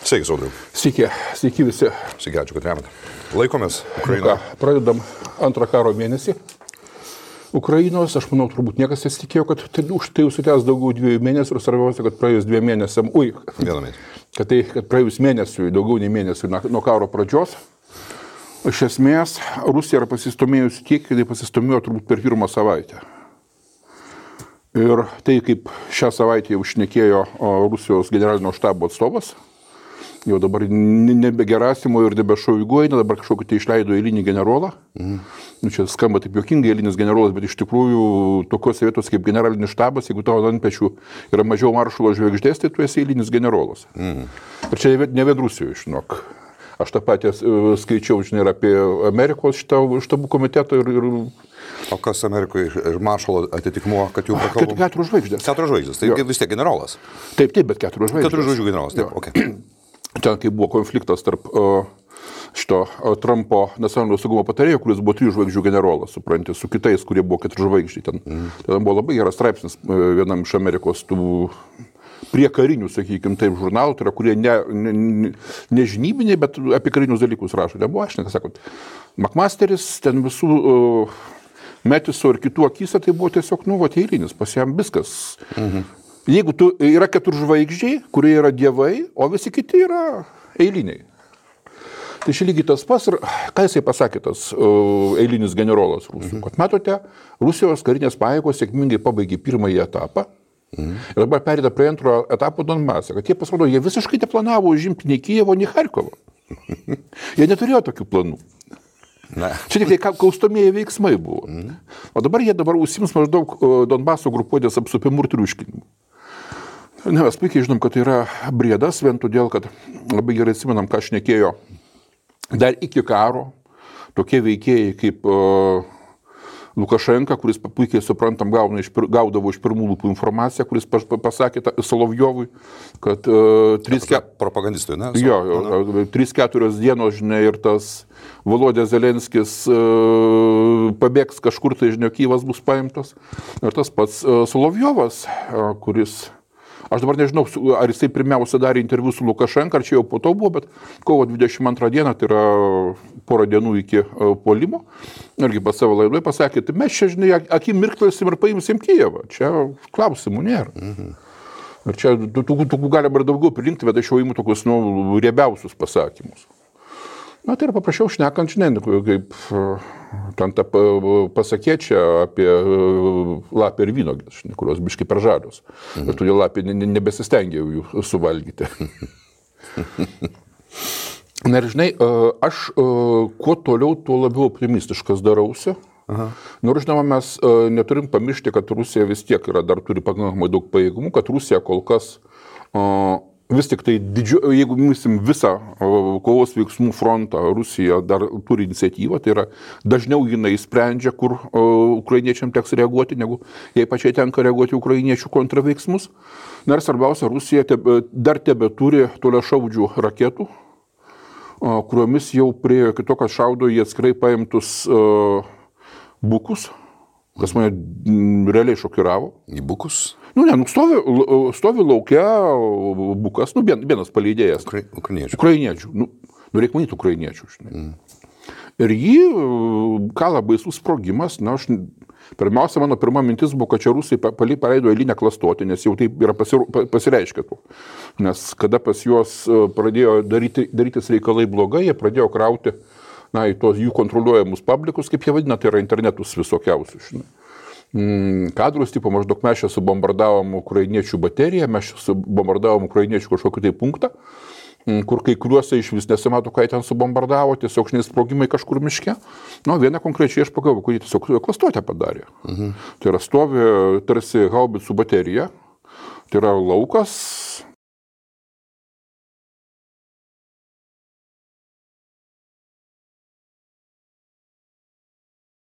Sveiki, Saudriau. Sveiki visi. Sveiki, ačiū, kad remate. Laikomės Ukrainoje. Pradedam antrą karo mėnesį. Ukrainos, aš manau, turbūt niekas nesitikėjo, kad tai užsitęs daugiau 2 mėnesių ir svarbiausia, kad praėjus 2 mėnesiam, kad praėjus mėnesiui, daugiau nei mėnesiui nuo karo pradžios, iš esmės Rusija yra pasistumėjusi tiek, kad jie pasistumėjo turbūt per pirmą savaitę. Ir tai, kaip šią savaitę jau šnekėjo Rusijos generalinio štabo atstovas, jau dabar nebe Gerasimo ir nebe Šoigu, dabar kažkokį tai išleido eilinį generolą. Čia skamba taip juokingai, eilinis generolas, bet iš tikrųjų tokiose vietos kaip generalinis štabas, jeigu tavo ant pečių yra mažiau maršalo žvaigždės, tai tu esi eilinis generolas. Ir čia ne vien Rusijoje, žinok. Aš tą patį skaičiau, žinai, apie Amerikos štabų komitetą ir... O kas Amerikoje ir maršalo atitikmuo, kad jų prakalbom? 4 žvaigždės. 4 žvaigždės, tai vis tiek generolas. Taip, bet 4 žvaigždės. 4 žvaigždžių generolas, taip, okei. Ten, kai buvo konfliktas tarp Trumpo nacionalinio saugumo patarėjo, kuris buvo 3 žvaigždžių generolas, supranti, su kitais, kurie buvo 4 žvaigždžiai. Ten buvo labai geras straipsnis vienam iš Amerikos tų prie karinių, sakykime, taip, žurnalų, tai yra, kurie ne žinybiniai, bet apie karinius dalykus rašo. Nebuvo, aš nesakot. McMasteris, ten visų Metiso ir kitų akise, tai buvo tiesiog, eilinis, pas jam viskas. Jeigu yra 4 žvaigždžiai, kurie yra dievai, o visi kiti yra eiliniai. Tai čia lygiai tas pas ir ką jisai pasakė tas eilinis generolas Rusų. Kad matote, Rusijos karinės pajėgos sėkmingai pabaigė pirmąjį etapą ir dabar perėda prie antro etapo Donbase. Kad jie pasirodo, jie visiškai neplanavo užimti nei Kijevo, nei Charkovo. Jie neturėjo tokių planų. Čia tik tai kaustomieji veiksmai buvo. O dabar jie užsiims maždaug Donbaso grupuotės apsupimu ir triuškinimu. Mes puikiai žinom, kad tai yra briedas, vien todėl, kad labai gerai atsimenam, ką šnekėjo dar iki karo tokie veikėjai kaip Lukašenka, kuris puikiai suprantam gaudavo iš pirmų lūpų informaciją, kuris pasakė Solovjovui, kad propagandistui, ne? Jo, 3-4 dienos, žinai, ir tas Volodė Zelenskis pabėgs kažkur, tai, žinai, Kyjivas bus paimtas. Ir tas pats Solovjovas, kuris... Aš dabar nežinau, ar jisai pirmiausia darė interviu su Lukašenka, ar čia jau po to buvo, bet kovo 22 dieną, tai yra porą dienų iki puolimo, irgi pas savo laidoje pasakė, tai mes čia, žinai, akim mirktelsim ir paimsim Kijevą. Čia klausimų nėra. Ir čia tų galima ir daugiau prilinkti, bet aš jau imu tokius, riebiausius pasakymus. Na, tai yra paprašiau šnekant, žinai, kaip ten tą pasakė čia apie lapę ir vynogės, kurios biškai per žalios. Ir todėl lapė nebesistengiau jų suvalgyti. Na ir žinai, aš kuo toliau, tuo labiau optimistiškas darausi. Nors, žinoma, mes neturim pamiršti, kad Rusija vis tiek dar turi pakankamai daug pajėgumų, kad Rusija kol kas vis tik tai, jeigu mysim visą kovos veiksmų frontą, Rusija dar turi iniciatyvą, tai yra dažniau jinai sprendžia, kur ukrainiečiam teks reaguoti, negu jai pačiai tenka reaguoti ukrainiečių kontraveiksmus. Na ir svarbiausia, Rusija dar tebeturi toliašaudžių raketų, kuriomis jau priejo kito, kad šaudo į atskirai paimtus bukus, kas mane realiai šokiravo. Į bukus? Stovi laukia bukas, vienas paleidėjas. Ukrainiečių. Reikia manyti ukrainiečių. Ir jį kala baisus sprogimas. Pirmiausia, mano pirma mintis buvo, kad čia Rusai paleido eilinę klastotę, nes jau taip yra pasireiškę. Nes kada pas juos pradėjo darytis reikalai blogai, jie pradėjo krauti į tos jų kontroliuojamus publikus, kaip jie vadina, tai yra internetus visokiausius. Kadrus, tipo, maždaug mes čia subombardavom ukrainiečių bateriją, mes čia subombardavom ukrainiečių kažkokį tai punktą, kur kai kuriuose iš vis nesimato, ką jie ten subombardavo, tiesiog sprogimai kažkur miške. Vieną konkrečiai aš pagalvojau, kad jie tiesiog klastotę padarė. Tai yra stovi tarsi haubicų baterija, tai yra laukas,